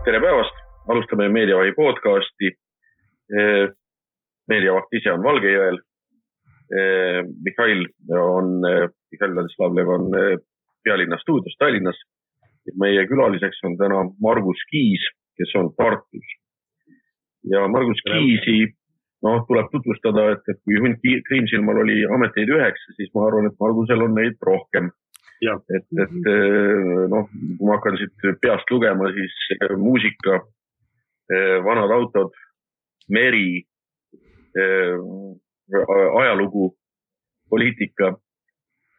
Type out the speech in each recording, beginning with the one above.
Tere päevast, alustame Meediavahi podcasti. Meediavaht ise on Valgejõel. Mihhail Ladislavlev on pealinna stuudios Tallinnas. Meie külaliseks on täna Margus Kiis, kes on Tartus. Ja Margus Kiisi tuleb tutvustada, et kui Hunt Kriimsilmal oli ameteid 9, siis ma arvan, et Margusel on neid rohkem. Ja. Kui ma hakkan siit peast lugema, siis muusika, vanad autod, meri, ajalugu, poliitika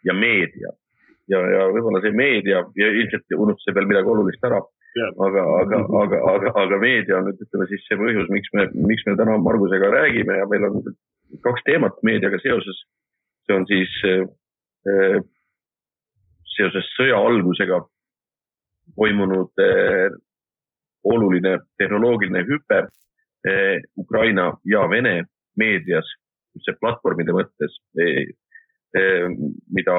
ja meedia. Ja võib-olla see meedia, ja ilmselt unustab veel midagi olulist ära, aga meedia on ütleme siis see põhjus, miks me täna Margusega räägime ja meil on 2 teemat meediaga seoses. See on siis seoses sõja algusega toimunud oluline tehnoloogiline hüpe Ukraina ja Vene meedias, see platvormide mõttes, mida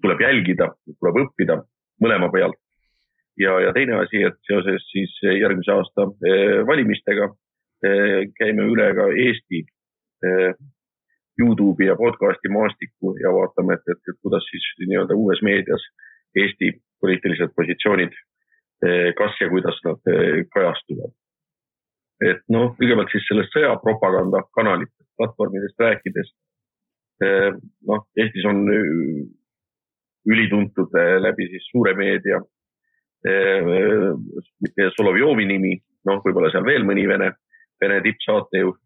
tuleb jälgida, tuleb õppida mõlema pealt. Ja teine asi, et seoses siis järgmise aasta valimistega käime üle ka Eesti YouTube'i ja podcasti maastikku ja vaatame, et kuidas siis nii-öelda uues meedias Eesti poliitilised positsioonid, kas ja kuidas nad kajastuvad. Et kõigepealt siis sellest sõjapropaganda kanalitest, platvormidest rääkides. Eestis on ülituntud läbi siis suure meedia Solovjovi nimi, võib-olla seal veel mõni Vene tippsaatejuht.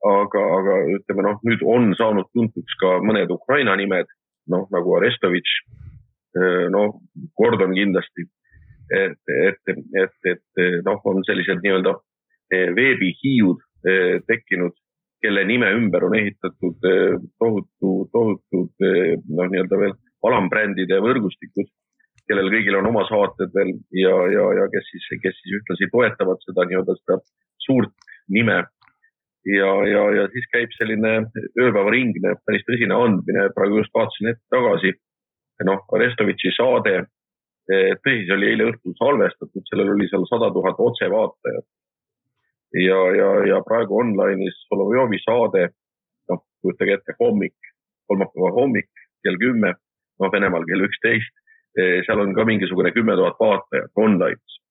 Aga ütleme, nüüd on saanud tuntuks ka mõned Ukraina nimed, nagu Arestovitš, Gordon kindlasti, et on sellised nii-öelda veebihiiud tekkinud, kelle nime ümber on ehitatud tohutud nii-öelda veel alambrändide võrgustikud, kellel kõigil on oma saated veel ja kes siis ühtlasi toetavad seda nii-öelda seda suurt nime. Ja siis käib selline ööpäevaringne, päris tõsine andmine, praegu just vaatasin ette tagasi. Arestovitši saade, tõsis oli eile õhtul salvestatud, sellel oli seal 100 000 otsevaatajat. Ja praegu online'is Solovjovi saade, kujutage ette kolmapäeva hommik, kell 10, Venemaal kell 11, seal on ka mingisugune 10 000 vaatajat online'is.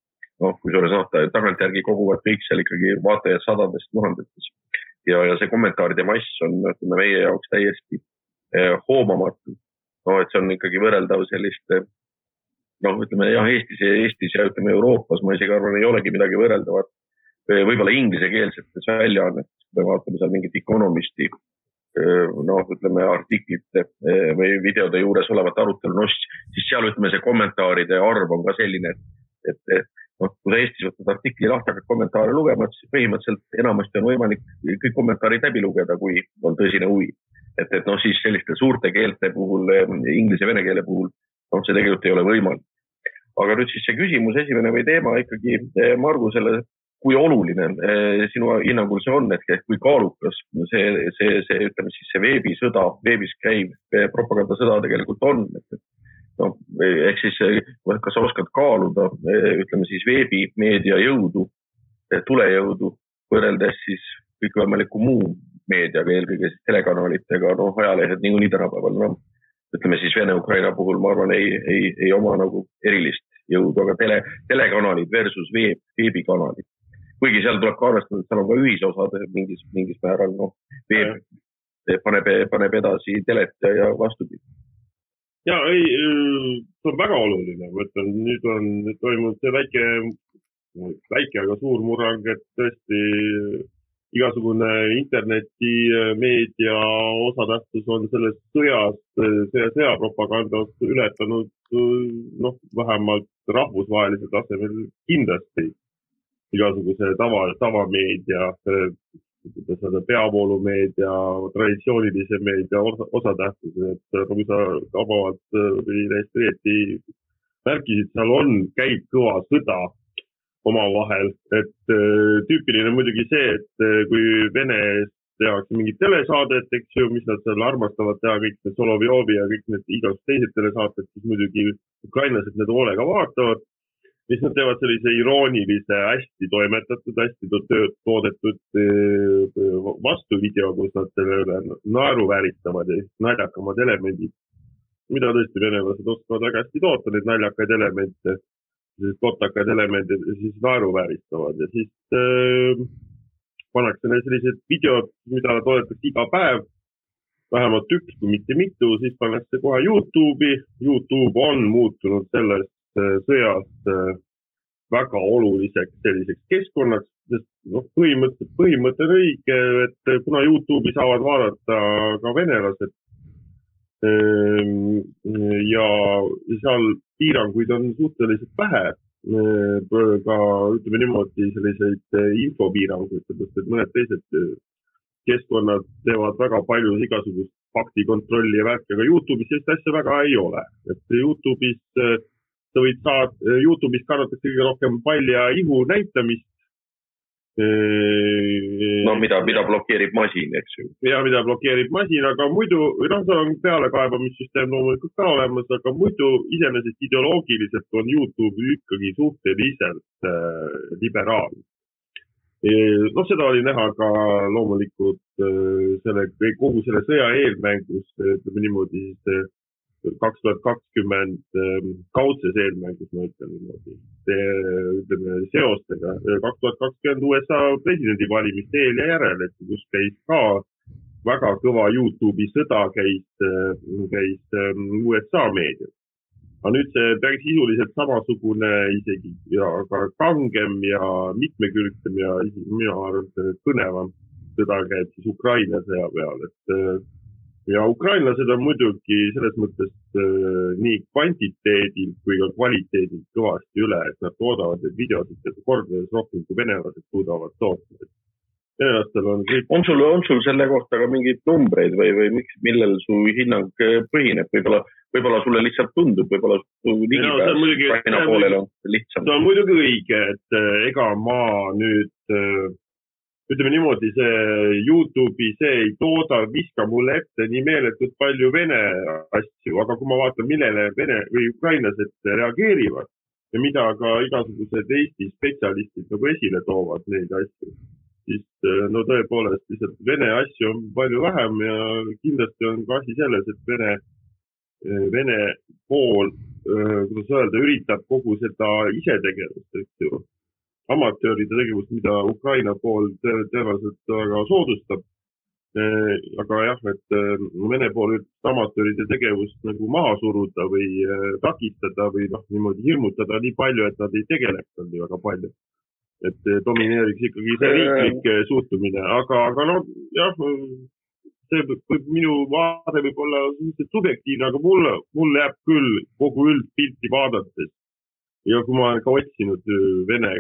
Kui suure saata, tagantjärgi koguvad kõik seal ikkagi vaatajad sadadest tuhandetes. Ja see kommentaaride mass on meie jaoks täiesti hoomamatu. Et see on ikkagi võrreldav sellist, Eestis ja ütleme Euroopas, ma isegi arvan, ei olegi midagi võrreldavat. Võib-olla inglisekeelsetes väljaannetes, kui me vaatame seal mingit Economisti, artiklite või videode juures olevat arutelu, siis seal see kommentaaride arv on ka selline, et kui Eestis võtad artikli lahti, hakkad kommentaare lugema, siis põhimõtteliselt enamasti on võimalik kõik kommentaarid läbi lugeda, kui on tõsine huvi. Et siis selliste suurte keelte puhul, inglise ja vene keele puhul, see tegelikult ei ole võimalik. Aga nüüd siis see küsimus, esimene või teema ikkagi Margusele, kui oluline sinu hinnangul see on, et kui kaalukas see veebisõda, veebis käiv propagandasõda tegelikult on, ehk siis, kas sa oskad kaaluda, veebimeedia jõudu, tulejõudu, võrreldes siis kõikvõimaliku muu meediaga, eelkõige siis telekanalitega, ajalehed niikuinii tänapäeval, Vene-Ukraina puhul, ma arvan, ei oma nagu erilist jõudu, aga telekanalid versus veebikanalid. Kuigi seal tuleb ka arvestada, et seal on ka ühisosad mingis määral, veeb paneb edasi telet ja vastupidi. Ja, see on väga oluline. Nüüd on toimunud see väike, aga suur murrang, et tõesti igasugune interneti meedia osatähtsus on selles sõjapropagandast ületanud vähemalt rahvusvahelisel tasemel kindlasti igasuguse tavameedia, peavoolumeedia, traditsioonilise meedia osatähtsus, et kui sa tabavalt või täiesti märkisid, seal käib kõva sõda omavahel, et tüüpiline muidugi see, et kui Venest tehakse mingit telesaadet, eks ju, mis nad seal armastavad teha, kõik need Solovjovi ja kõik need igasugused teised telesaated, siis muidugi ukrainlased need hoolega vaatavad. Siis nad teevad sellise iroonilise, hästi toimetatud, hästi toodetud vastuvideo, kus nad selle naeru vääritavad ja naljakamad elemendid, mida tõesti venelased oskavad väga hästi toota, neid naljakaid elemente, kotakaid elemente siis naeru vääristavad ja siis pannakse need sellised videod, mida toodetakse iga päev, vähemalt üks, kui mitte mitu, siis pannakse kohe YouTube'i. YouTube on muutunud sellest sõjast väga oluliseks selliseks keskkonnaks, sest põhimõte on õige, et kuna YouTube'i saavad vaadata ka venelased ja seal piiranguid on suhteliselt vähe, ka ütleme niimoodi selliseid infopiiranguid, sest mõned teised keskkonnad teevad väga palju igasugust faktikontrolli ja värki, aga YouTube'is sellist asja väga ei ole. Et YouTube'is kannatakse kõige rohkem palja ihu näitamist. No mida blokeerib masin, eks ju. Ja mida blokeerib masin, aga muidu, see on pealekaebamissüsteem loomulikult ka olemas, aga muidu iseenesest ideoloogiliselt on YouTube ikkagi suhteliselt liberaalne. Seda oli näha ka loomulikult kogu selle sõja eelmängus, ütleme niimoodi, 2020 kaudses eelmängus, ma ütlen niimoodi, seostega. 2020 USA presidendivalimiste eel ja järel, et kus käis ka väga kõva YouTube'i sõda käis USA meedias. Aga nüüd see päris sisuliselt samasugune isegi ja ka kangem ja mitmekülgsem ja mina arvan, et kõnevam sõda käib siis Ukraina sõja peal, et ja ukrainlased on muidugi selles mõttes nii kvantiteedilt kui ka kvaliteedilt kõvasti üle, et nad toodavad neid videosid kordades rohkem kui venelased suudavad toota. Venelastel on kõik... On sul selle kohta ka mingeid numbreid või millel su hinnang põhineb? Võib-olla sulle lihtsalt tundub, võib-olla su ligipääs Ukraina poolele on lihtsam. See on muidugi õige, et ega ma nüüd... Ütleme niimoodi, see YouTube'i see ei tooda, viska mulle ette nii meeletult palju vene asju, aga kui ma vaatan, millele vene või ukrainlased reageerivad ja mida ka igasugused Eesti spetsialistid nagu esile toovad neid asju, siis no tõepoolest lihtsalt vene asju on palju vähem ja kindlasti on ka asi selles, et vene pool, kuidas öelda, üritab kogu seda isetegevust, eks ju. Amatööride tegevust, mida Ukraina pool tõenäoliselt väga soodustab. Aga jah, et Vene pool üritab amatööride tegevust nagu maha suruda või takistada või niimoodi hirmutada nii palju, et nad ei tegeleks nii väga palju. Et domineeriks ikkagi see riiklik suhtumine. Aga no jah, see minu vaade võib olla subjektiivne, aga mulle jääb küll kogu üldpilti vaadates. Ja kui ma olen ka otsinud Vene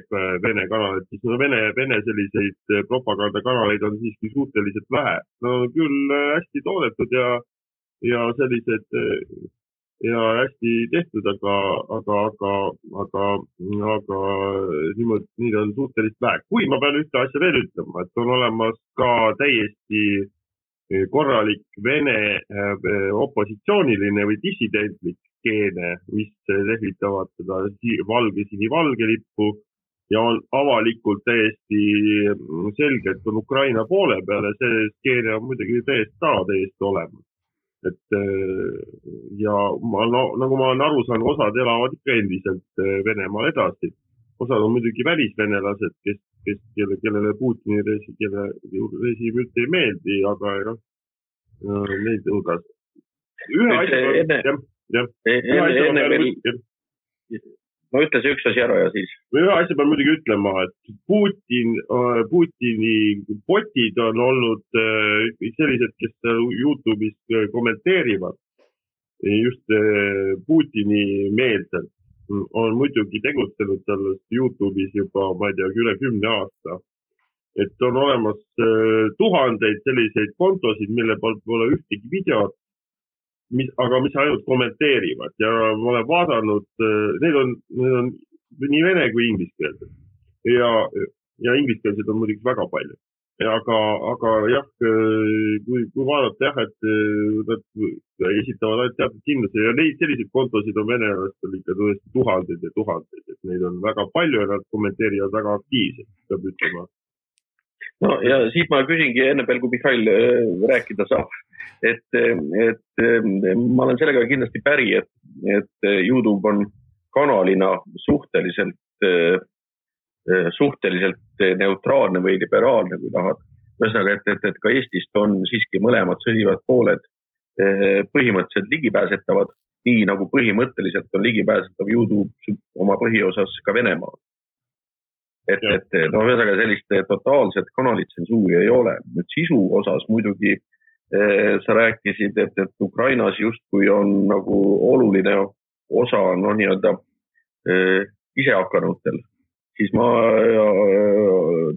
kanalit, siis Vene selliseid propagandakanaleid on siiski suhteliselt vähe. No küll hästi toodetud ja sellised ja hästi tehtud, aga niimoodi neid on suhteliselt vähe. Kui ma pean ühte asja veel ütlema, et on olemas ka täiesti korralik Vene opositsiooniline või dissidentlik keene, mis lehvitavad seda valge lippu ja on avalikult täiesti selgelt on Ukraina poole peale, see keene on muidugi täiesti olemas. Et ja nagu ma olen aru saanud, osad elavad ikka endiselt Venemaal edasi. Osad on muidugi välisvenelased, kellele Putini režiim üldse ei meeldi, aga neid hulgas. Ma ütles üks asi ära ja siis. Ühe asja pean muidugi ütlema, et Putini botid on olnud sellised, kes YouTube'is kommenteerivad just Putini meelselt. On muidugi tegutsenud sellest YouTube'is juba, ma ei tea, üle 10 aasta. Et on olemas tuhandeid selliseid kontosid, mille poolt pole ühtegi videot, aga mis ainult kommenteerivad ja ma olen vaadanud, need on nii vene kui ingliskeelsed ja ingliskeelsed on muidugi väga palju. aga jah, kui vaadata jah, et nad esitavad ainult teatud kindluse ja neid selliseid kontosid on venelastel ikka tõesti tuhandeid ja tuhandeid, et neid on väga palju ja nad kommenteerivad väga aktiivselt, peab ütlema. No ja siit ma küsingi enne veel, kui Mihhail rääkida saab, et ma olen sellega kindlasti päri, et YouTube on kanalina suhteliselt neutraalne või liberaalne, kui tahad. Ühesõnaga, et ka Eestist on siiski mõlemad sõdivad pooled põhimõtteliselt ligipääsetavad, nii nagu põhimõtteliselt on ligipääsetav YouTube oma põhiosas ka Venemaal. Ühesõnaga sellist totaalset kanalitsensuuri ei ole. Nüüd sisu osas muidugi sa rääkisid, et Ukrainas justkui on nagu oluline osa nii-öelda isehakkanutel. Siis ma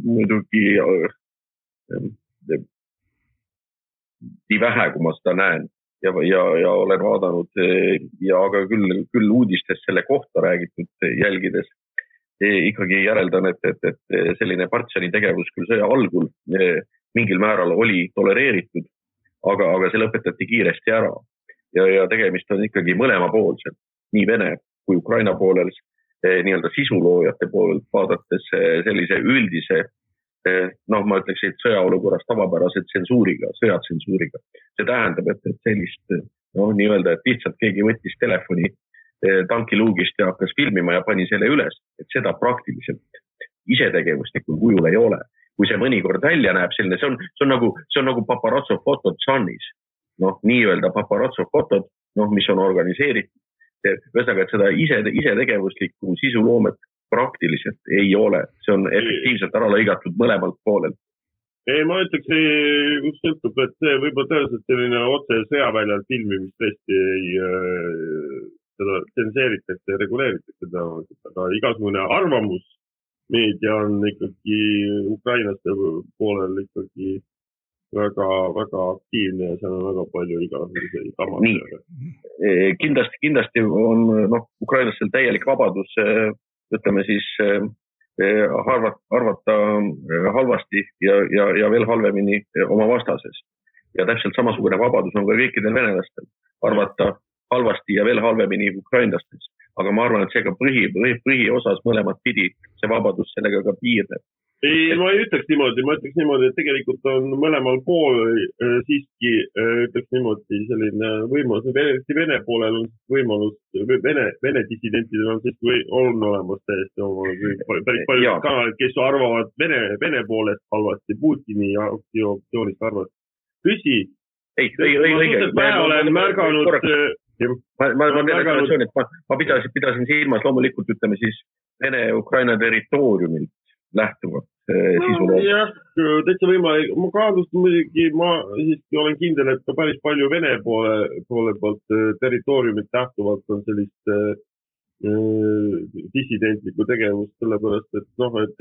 muidugi nii vähe, kui ma seda näen ja olen vaadanud ja aga küll uudistes selle kohta räägitud jälgides ikkagi järeldan, et selline Partsani tegevus küll sõja algul mingil määral oli tolereeritud, aga see lõpetati kiiresti ära ja tegemist on ikkagi mõlemapoolselt, nii Vene kui Ukraina poolel nii-öelda sisuloojate poolelt vaadates sellise üldise, ma ütleks, et sõjaolukorras tavapärase tsensuuriga, sõjatsensuuriga. See tähendab, et sellist nii-öelda, et lihtsalt keegi võttis telefoni tankiluugist ja hakkas filmima ja pani selle üles, et seda praktiliselt isetegevuslikul kujul ei ole. Kui see mõnikord välja näeb selline, see on nagu paparazzo fotod Sunnis. Nii-öelda paparazzo fotod, mis on organiseeritud. Ühesõnaga, et seda isetegevuslikku sisuloomet praktiliselt ei ole. See on efektiivselt ära lõigatud mõlemalt poolelt. Ei, ma ütleks, kus sõltub, et see võib-olla tõenäoliselt selline otse sõjaväljal filmimist tõesti seda tsenseeritakse ja reguleeritakse, aga igasugune arvamusmeedia on ikkagi ukrainlaste poolel ikkagi väga, väga aktiivne ja seal on väga palju igasuguseid kamasid. Kindlasti on ukrainlastel täielik vabadus, ütleme siis, arvata halvasti ja veel halvemini oma vastases. Ja täpselt samasugune vabadus on ka kõikidel venelastel arvata halvasti ja veel halvemini ukrainlastest. Aga ma arvan, et see ka põhiosas mõlemad pidi see vabadus sellega ka piirneb. Ei, ma ei ütleks niimoodi, et tegelikult on mõlemal pool siiski, ütleks niimoodi, selline võimalus, Vene poolel on võimalus, Vene dissidentidel on siiski on olemas täiesti päris palju kanalid, kes arvavad Vene poolest halvasti, Putini aktsioonist arvavad. Tõsi, ma olen märganud... Ma pidasin silmas loomulikult, ütleme siis, Vene-Ukraina territooriumilt lähtuvat sisuloomet. Jah, täitsa võimalik. Ma kaadust muidugi, ma siiski olen kindel, et ka päris palju Vene poole poolt territooriumit lähtuvalt on sellist dissidentlikku tegevust, sellepärast, et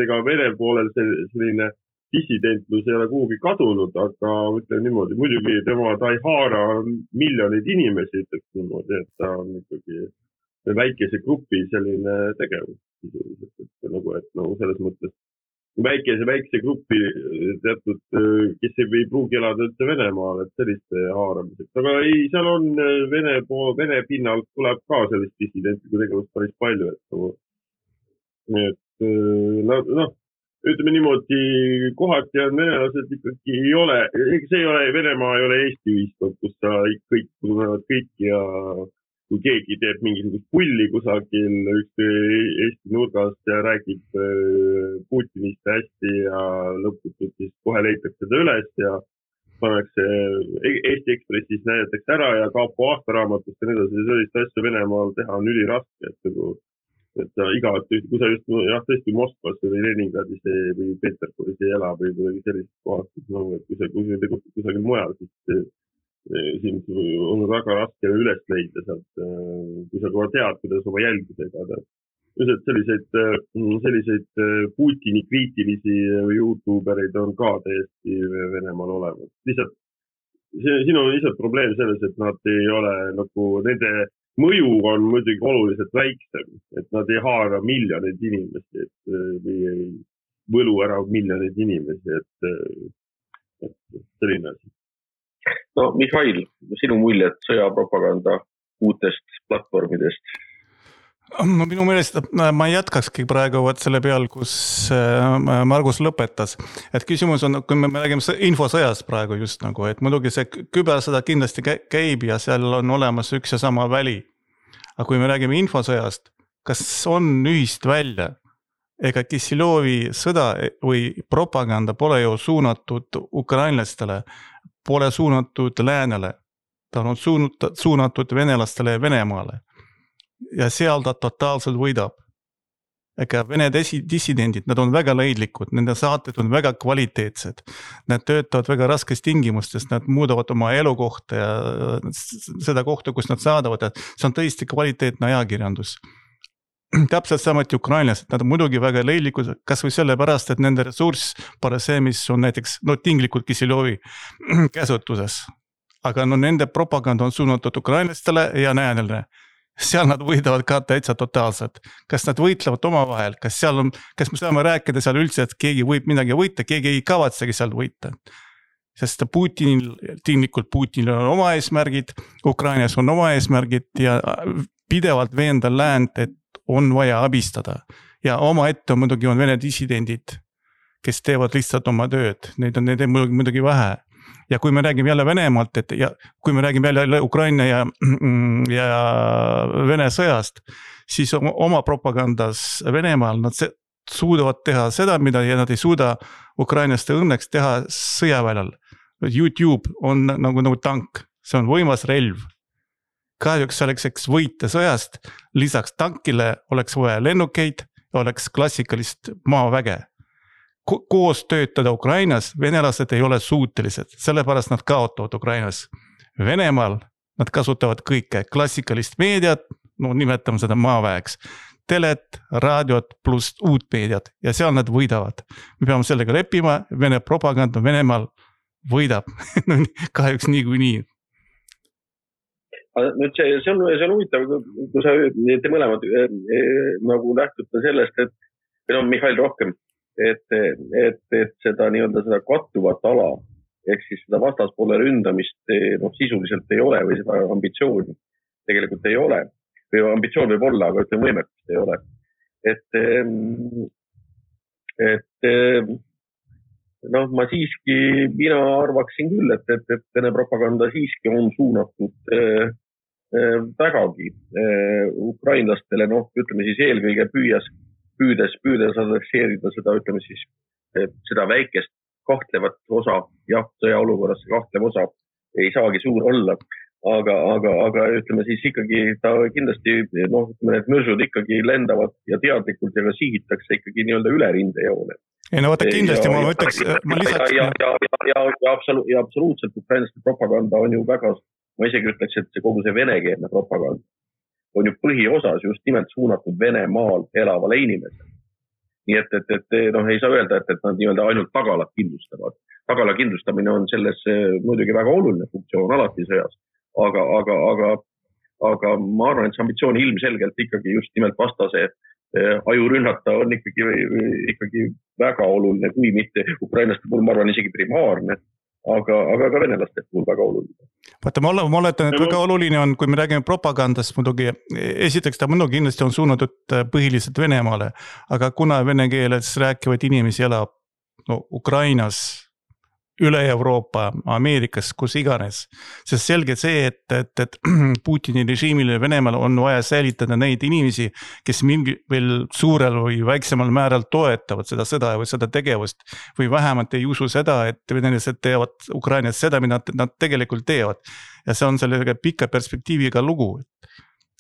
ega Vene poolel selline dissidentlus ei ole kuhugi kadunud, aga ütlen niimoodi, muidugi ta ei haara miljoneid inimesi, ütleks niimoodi, et ta on ikkagi väikese grupi selline tegevus sisuliselt, et selles mõttes väikese gruppi teatud, kes ei pruugi elada üldse Venemaal, et selliste haaramiseks. Aga ei, seal on Vene pinnalt tuleb ka sellist dissidentlikku tegevust päris palju, ütleme niimoodi, kohati on venelased ikkagi ei ole, see ei ole, Venemaa ei ole Eesti ühiskond, kus kõik tunnevad kõik ja kui keegi teeb mingisugust pulli kusagil Eesti nurgast ja räägib Putinist hästi ja lõputult siis kohe leitakse seda üles ja pannakse Eesti Ekspressis näidatakse ära ja Kaapo aastaraamatust ja nii sellist asja Venemaal teha on üliraske, et sa kui sa just tõesti Moskvas või Leningradis või Peterburis ei ela või sellist kohast, et kui sa tegutsid kusagil mujal, siis siin on väga raske üles leida sealt, kui sa kohe tead, kuidas oma jälgidega. Selliseid Putini kriitilisi YouTubereid on ka täiesti Venemaal olemas. Lihtsalt, siin on lihtsalt probleem selles, et nad ei ole nende mõju on muidugi oluliselt väiksem, et nad ei haara miljoneid inimesi, võlu ära miljoneid inimesi, et selline asi. No Mihhail, sinu muljed sõjapropaganda uutest platvormidest? No minu meelest ma jätkakski praegu selle peal, kus Margus lõpetas. Et küsimus on, kui me räägime infosõjast praegu just nagu, et muidugi see kübersõda kindlasti käib ja seal on olemas üks ja sama väli. Aga kui me räägime infosõjast, kas on ühist välja? Ega Kissilovi sõda või propaganda pole ju suunatud ukrainlastele, pole suunatud läänele. Ta on suunatud venelastele ja Venemaale. Ja seal ta totaalselt võidab. Ega Vene dissidendid, nad on väga leidlikud, nende saated on väga kvaliteetsed. Nad töötavad väga raskes tingimustes, nad muudavad oma elukohta ja seda kohta, kus nad saadavad. See on tõesti kvaliteetne ajakirjandus. Täpselt samuti ukrainlased, nad on muidugi väga leidlikud, kas või selle pärast, et nende ressurss pole see, mis on näiteks tinglikult Kissilovi käsutuses. Aga nende propaganda on suunatud ukrainlastele ja näänele. Seal nad võidavad ka täitsa totaalselt. Kas nad võitlevad omavahel? Kas me saame rääkida seal üldse, et keegi võib midagi võita, keegi ei kavatsegi seal võita? Sest Putinil on oma eesmärgid, Ukrainas on oma eesmärgid ja pidevalt veenda läänd, et on vaja abistada. Ja oma ette muidugi on Vene dissidendid, kes teevad lihtsalt oma tööd. Neid on muidugi vähe. Ja kui me räägime jälle Venemaalt, ja kui me räägime jälle Ukraina ja Vene sõjast, siis oma propagandas Venemaal nad suudavad teha seda, mida nad ei suuda ukrainaste õnneks teha sõjaväljal. YouTube on nagu tank, see on võimas relv. Kahjuks selleks võita sõjast, lisaks tankile oleks vaja lennukeid, oleks klassikalist maaväge. Koos töötada Ukrainas, venelased ei ole suutelised, sellepärast nad kaotavad Ukrainas. Venemaal nad kasutavad kõike, klassikalist meediat, nimetame seda maaväeks, telet, raadiot pluss uut meediat ja seal nad võidavad. Me peame sellega leppima, Vene propaganda Venemaal võidab, kahjuks niikuinii. Nüüd see on huvitav, kui te mõlemad nagu lähtute sellest, et Mihhail rohkem, et seda seda kattuvat ala, ehk siis seda vastaspoole ründamist sisuliselt ei ole või seda ambitsiooni tegelikult ei ole. Või ambitsioon võib olla, aga ütleme võimekust ei ole. Mina arvaksin küll, et Vene propaganda siiski on suunatud vägagi ukrainlastele, ütleme siis eelkõige püüdes adresseerida seda, ütleme siis, seda väikest kahtlevat osa, jah, sõjaolukorras see kahtlev osa ei saagi suur olla, aga ütleme siis ikkagi ta kindlasti, need mõrsud ikkagi lendavad ja teadlikult ja ka sihitakse ikkagi nii-öelda üle rindejoone. Ei no vaata kindlasti, ma ütleks, ma lisaks... Ja absoluutselt ukrainlaste propaganda on ju väga, ma isegi ütleks, et kogu see venekeelne propaganda on ju põhiosas just nimelt suunatud Venemaal elavale inimesele. Nii et ei saa öelda, et nad nii-öelda ainult tagalat kindlustavad. Tagala kindlustamine on selles muidugi väga oluline funktsioon alati sõjas, aga ma arvan, et see ambitsioon ilmselgelt ikkagi just nimelt vastase ajurünnata on ikkagi väga oluline, kui mitte ukrainlaste puhul, ma arvan, isegi primaarne, aga ka venelaste puhul väga oluline. Vaata, ma oletan, et väga oluline on, kui me räägime propagandast muidugi, esiteks ta muidugi kindlasti on suunatud põhiliselt Venemaale, aga kuna vene keeles rääkivad inimesi elab Ukrainas, üle Euroopa, Ameerikas, kus iganes. Sest selge see, et Putini režiimile Venemaal on vaja säilitada neid inimesi, kes mingi veel suurel või väiksemal määral toetavad seda sõda või seda tegevust või vähemalt ei usu seda, et venelased teevad Ukrainas seda, mida nad tegelikult teevad. Ja see on sellega pika perspektiiviga lugu.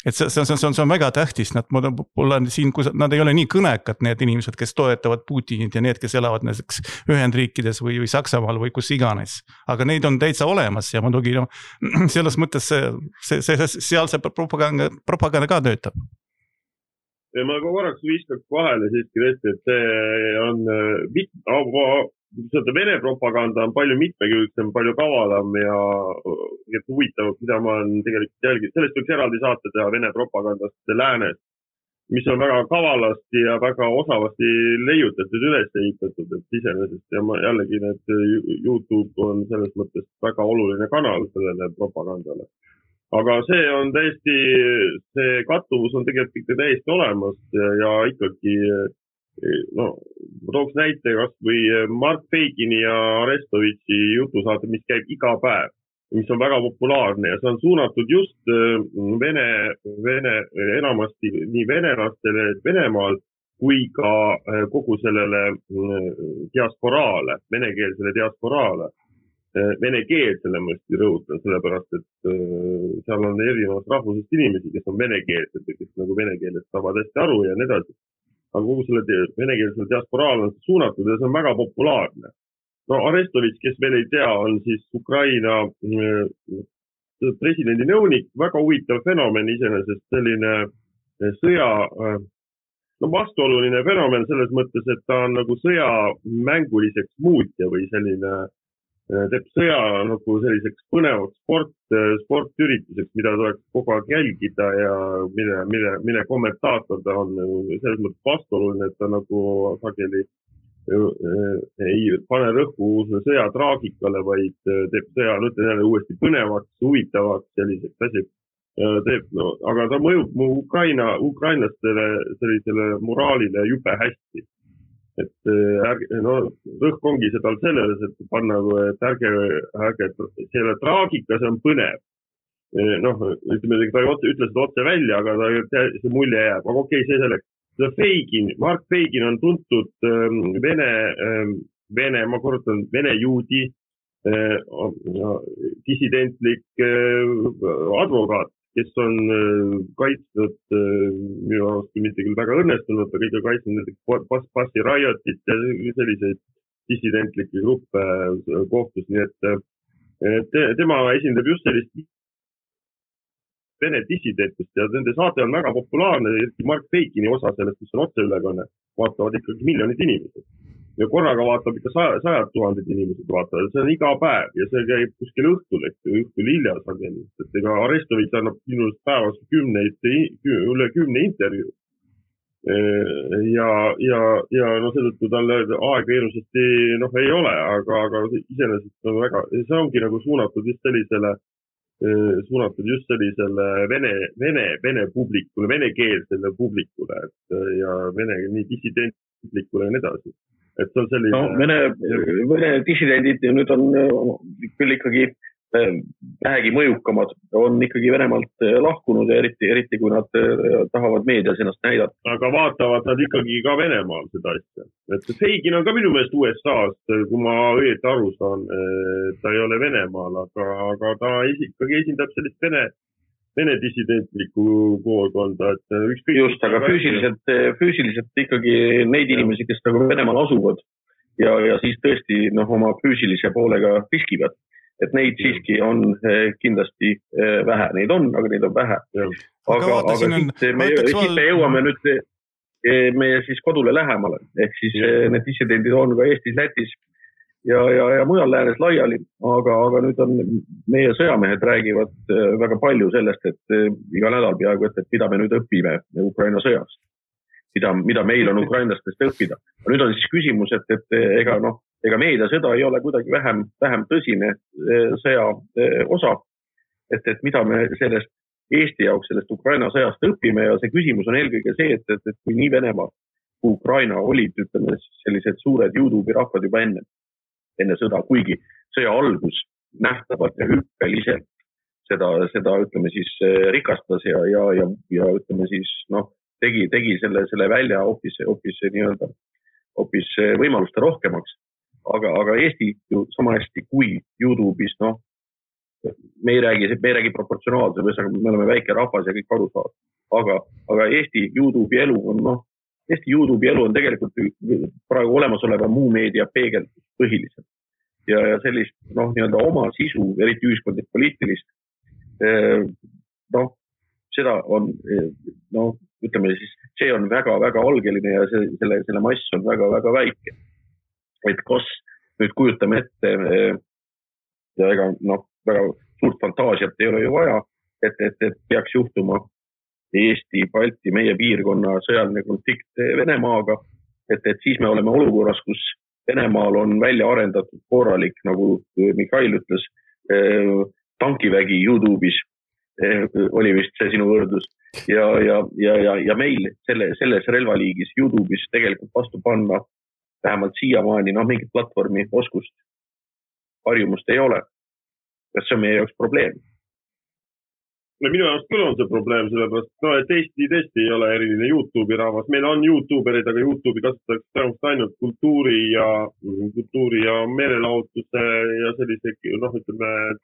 Et see on väga tähtis, nad ei ole nii kõnekad need inimesed, kes toetavad Putinit ja need, kes elavad näiteks Ühendriikides või Saksamaal või kus iganes. Aga neid on täitsa olemas ja muidugi selles mõttes seal see propaganda ka töötab. Ja ma korraks viskaks vahele siiski tõesti, et see on Vene propaganda on palju mitmekülgsem, palju kavalam ja huvitav, mida ma olen tegelikult jälginud. Sellest võiks eraldi saate teha Vene propagandast läänes. mis on väga kavalasti ja väga osavasti leiutatud, üles ehitatud, et iseenesest ja jällegi need YouTube on selles mõttes väga oluline kanal sellele propagandale. Aga see on täiesti, see kattuvus on tegelikult ikka täiesti olemas ja ikkagi, no, ma tooks näite kas või Mark Feigini ja Arestovitši jutusaate, mis käib iga päev, mis on väga populaarne ja see on suunatud just enamasti nii venelastele Venemaal kui ka kogu sellele diasporaale, venekeelsele diasporaale. Venekeelsele ma just rõhutan, sellepärast et seal on erinevast rahvusest inimesi, kes on venekeelsed ja kes nagu venekeelest saavad hästi aru ja nii edasi. Aga kogu selle venekeelsele diasporaale on suunatud ja see on väga populaarne. No Arestovitš, kes veel ei tea, on siis Ukraina presidendi nõunik, väga huvitav fenomen iseenesest, selline sõja, no vastuoluline fenomen selles mõttes, et ta on nagu sõja mänguliseks muutja või selline, teeb sõja nagu selliseks põnevaks sportürituseks, mida tuleks kogu aeg jälgida ja mille kommentaator ta on selles mõttes vastuoluline, et ta nagu sageli ei pane rõhku sõja traagikale, vaid teeb sõja, ütlen jälle uuesti põnevaks, huvitavaks, selliseks asjaks teeb, no, aga ta mõjub ukrainlastele sellisele moraalile jube hästi. Et no, rõhk ongi seda selles, et panna, et ärge, selle traagika, see on põnev. Noh, ütleme, ta ütles seda otse välja, aga see mulje jääb, aga okei, see selleks. Mark Feigin on tuntud ma korrutan, vene juudi, dissidentlik advokaat, kes on kaitsnud, minu arust mitte küll väga õnnestunud, aga ikka kaitsnud passi rajotit ja selliseid dissidentlikke gruppe kohtus, nii et tema esindab just sellist Vene dissidentust ja nende saate on väga populaarne, Mark Feigini osa sellest, mis on otseülekanne, vaatavad ikkagi miljonid inimesed. Ja korraga vaatab ikka 100,000 inimesed vaatavad, see on iga päev ja see käib kuskil õhtul hilja sageli. Et ega Arestovitš annab minust päevas üle 10 intervjuu. Ja no seetõttu talle aega hirmsasti ei ole, aga iseenesest on väga, see ongi nagu suunatud just sellisele vene publikule, venekeelsele publikule ja nii dissidentlikule ja nii edasi. Et see on selline... No, vene dissidendid nüüd on küll ikkagi vähegi mõjukamad, on ikkagi Venemaalt lahkunud ja eriti kui nad tahavad meedias ennast näidata. Aga vaatavad nad ikkagi ka Venemaal seda asja. Et Feigin on ka minu meelest USA-st, kui ma õieti aru saan, ta ei ole Venemaal, aga ta ikkagi esindab sellist vene dissidentlikku koolkonda. Just, aga füüsiliselt ikkagi neid inimesi, kes nagu Venemaal asuvad ja siis tõesti oma füüsilise poolega riskivad. Et neid siiski on kindlasti vähe. Neid on, aga neid on vähe. Aga siit me jõuame nüüd meie siis kodule lähemale. Ehk siis need dissidendid on ka Eestis, Lätis ja mujal läänes laiali. Aga nüüd on meie sõjamehed räägivad väga palju sellest, et iga nädal peaaegu, et mida me nüüd õpime Ukraina sõjast. Mida meil on ukrainlastest õppida. Nüüd on siis küsimus, et ega meediasõda ei ole kuidagi vähem tõsine sõja osa, et mida me sellest Eesti jaoks sellest Ukraina sõjast õpime ja see küsimus on eelkõige see, et kui nii Venemaa kui Ukraina olid, ütleme, sellised suured YouTube'i rahvad juba enne sõda, kuigi sõja algus nähtavalt ja hüppeliselt seda ütleme siis rikastas ja ütleme siis tegi selle välja hoopis nii-öelda hoopis võimaluste rohkemaks. Aga Eesti ju sama hästi kui YouTube'is, me ei räägi proportsionaalselt, me oleme väike rahvas ja kõik aru saavad. Aga Eesti YouTube'i elu on tegelikult praegu olemasoleva muu meedia peegeldus põhiliselt. Ja sellist nii-öelda oma sisu, eriti ühiskondlik poliitilist, seda on, ütleme siis, see on väga-väga algeline ja selle mass on väga-väga väike. Et kas nüüd kujutame ette ja ega väga suurt fantaasiat ei ole ju vaja, et peaks juhtuma, Eesti, Balti, meie piirkonna sõjaline konflikt Venemaaga, et siis me oleme olukorras, kus Venemaal on välja arendatud korralik, nagu Mihhail ütles, tankivägi YouTube'is, oli vist see sinu võrdlus, ja meil selles relvaliigis YouTube'is tegelikult vastu panna vähemalt siiamaani mingit platvormi oskust, harjumust ei ole. Kas see on meie jaoks probleem? Minu jaoks küll on see probleem, sellepärast, et Eesti tõesti ei ole eriline YouTube'i rahvas. Meil on YouTuberid, aga YouTube'i kasutatakse tõenäoliselt ainult kultuuri ja meelelahutuse ja sellise,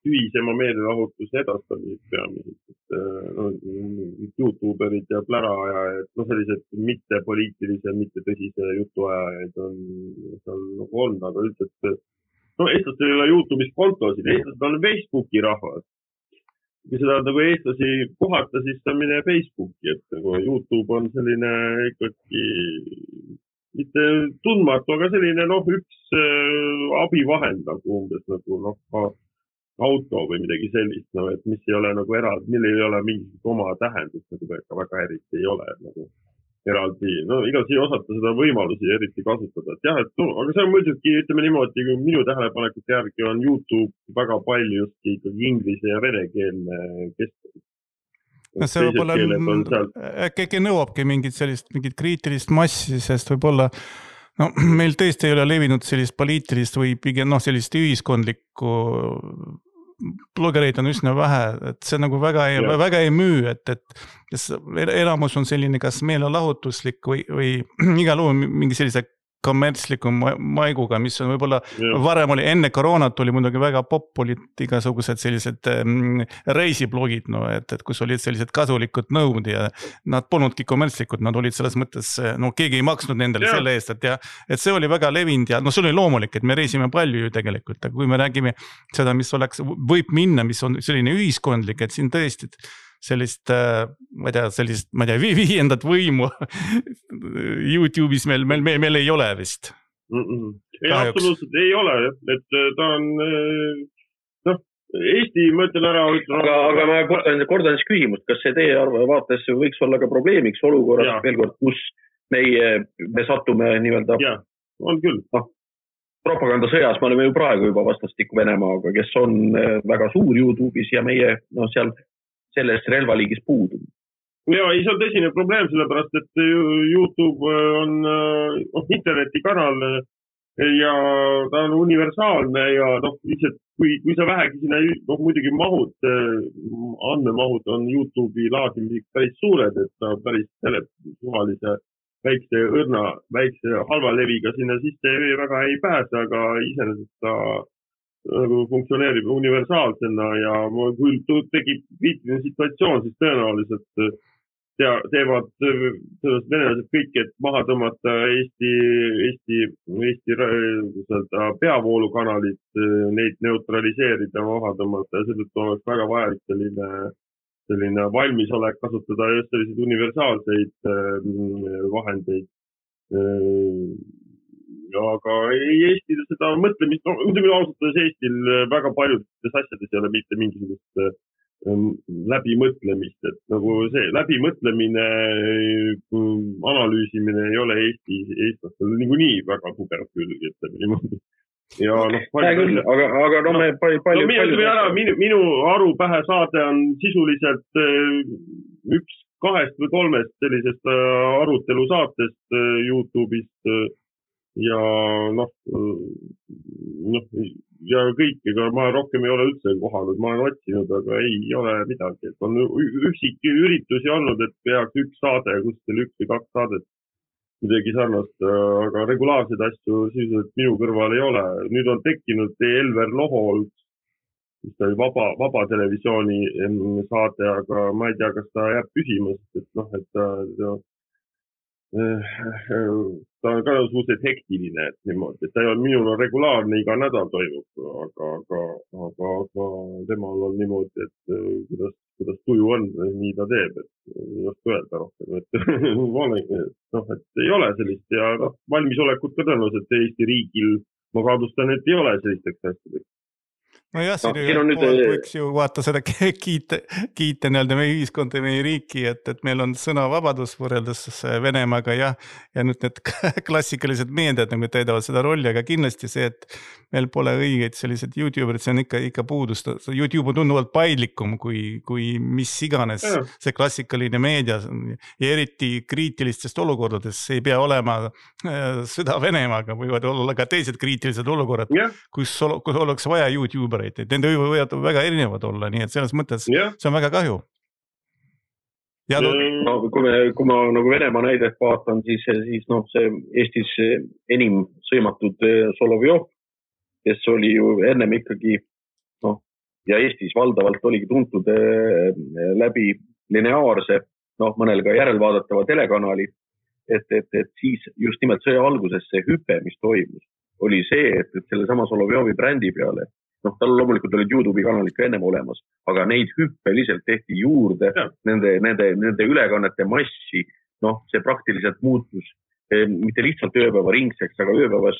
tühisema meelelahutuse edastamiseks peamiselt. YouTuberid ja pläraajad, sellised mitte poliitilise, mitte tõsise jutuajajaid on seal nagu olnud, aga üldiselt, eestlastel ei ole YouTube'is kontosid, eestlased on Facebooki rahvas. Kui seda nagu eestlasi kohata, siis ta mine Facebooki, et nagu YouTube on selline ikkagi mitte tundmatu, aga selline üks abivahend nagu umbes nagu auto või midagi sellist, et mis ei ole nagu eraldi, millel ei ole mingit oma tähendust, nagu väga eriti ei ole nagu eraldi, igalt ei osata seda võimalusi eriti kasutada, et jah, aga see on muidugi, ütleme niimoodi, minu tähelepanekute järgi on YouTube väga palju ikkagi inglise ja venekeelne keskkond. See võib-olla äkki nõuabki mingit kriitilist massi, sest võib-olla meil tõesti ei ole levinud sellist poliitilist või pigem sellist ühiskondlikku blogereid on üsna vähe, et see nagu väga ei müü, et enamus on selline kas meelelahutuslik või igal juhul mingi sellise kommertsliku maiguga, mis on võib-olla varem oli, enne koroonat oli muidugi väga olid igasugused sellised reisiblogid, et kus olid sellised kasulikud nõud ja nad polnudki kommertslikud, nad olid selles mõttes, keegi ei maksnud nendele selle eest, et see oli väga levinud ja see oli loomulik, et me reisime palju ju tegelikult, aga kui me räägime seda, mis võib minna, mis on selline ühiskondlik, et siin tõesti sellist, ma ei tea, viiendat võimu YouTube'is meil ei ole vist. Ei, absoluutselt ei ole, et ta on, Eesti, ma ütlen ära. Aga ma kordan siis küsimust, kas see teie vaates võiks olla ka probleemiks olukorras veel kord, kus me satume nii-öelda. Jah, on küll. Propagandasõjas me oleme ju praegu juba vastastikku Venemaaga, kes on väga suur YouTube'is ja meie seal selles relvaliigis puudub. Ja, see on tõsine probleem, sellepärast, et YouTube on internetikanal ja ta on universaalne ja lihtsalt, kui sa vähegi sinna, muidugi andmemahud on YouTube'i laadimiseks päris suured, et ta päris suvalise väikse halva leviga sinna sisse väga ei pääse, aga iseenesest ta funktsioneerib universaalsena ja kui tekib kriitiline situatsioon, siis tõenäoliselt teevad venelased kõik, et maha tõmmata Eesti peavoolukanalid, neid neutraliseerida, maha tõmmata ja seetõttu oleks väga vajalik selline valmisolek kasutada just selliseid universaalseid vahendeid. Aga Eestil seda mõtlemist, muidugi ausalt Eestil väga paljudes asjades ei ole mitte mingisugust läbimõtlemist, et nagu see läbimõtlemine, analüüsimine ei ole eestlastel niikuinii väga tugev külg, ütleme niimoodi. Ja minu arupähe saade on sisuliselt üks 2 või 3 sellisest arutelu saatest YouTube'ist ja ja kõik, ega ma rohkem ei ole üldse kohanud, ma olen otsinud, aga ei ole midagi, et on üksik üritusi olnud, et peaks üks saade, kuskil 1 või 2 saadet midagi sarnast, aga regulaarseid asju sisuliselt minu kõrval ei ole. Nüüd on tekkinud Elver Lohol, mis ta oli vaba televisiooni saade, aga ma ei tea, kas ta jääb püsima, et ta on ka suhteliselt hektiline, et niimoodi, et ta ei ole minul regulaarne iga nädal toimub, aga temal on niimoodi, et kuidas tuju on, nii ta teeb, et ei oska öelda rohkem, et ei ole sellist ja valmisolekut ka tõenäoliselt Eesti riigil, ma kaadustan, et ei ole sellisteks asjadeks. no jah, siin nüüd võiks ju vaata seda kiita nii-öelda meie ühiskonda ja meie riiki, et meil on sõnavabadus võrreldes Venemaaga ja nüüd need klassikalised meediad nagu täidavad seda rolli, aga kindlasti see, et meil pole õigeid sellised YouTuberid, see on ikka puudus. YouTube on tunduvalt paindlikum kui mis iganes see klassikaline meedia ja eriti kriitilistest olukordades ei pea olema sõda Venemaaga, võivad olla ka teised kriitilised olukorrad, kus oleks vaja YouTubereid. Nende võivad väga erinevad olla, nii et selles mõttes see on väga kahju. No, kui ma nagu Venemaa näidet vaatan, siis see Eestis enim sõimatud Solovjov, kes oli ju ennem ikkagi ja Eestis valdavalt oligi tuntud läbi lineaarse, mõnel ka järelvaadatava telekanali, et siis just nimelt sõja alguses see hüpe, mis toimus, oli see, et selle sama Solovjovi brändi peale tal loomulikult olid YouTube'i kanalid ka ennem olemas, aga neid hüppeliselt tehti juurde, nende ülekannete massi, see praktiliselt muutus mitte lihtsalt ööpäeva ringseks, aga ööpäevas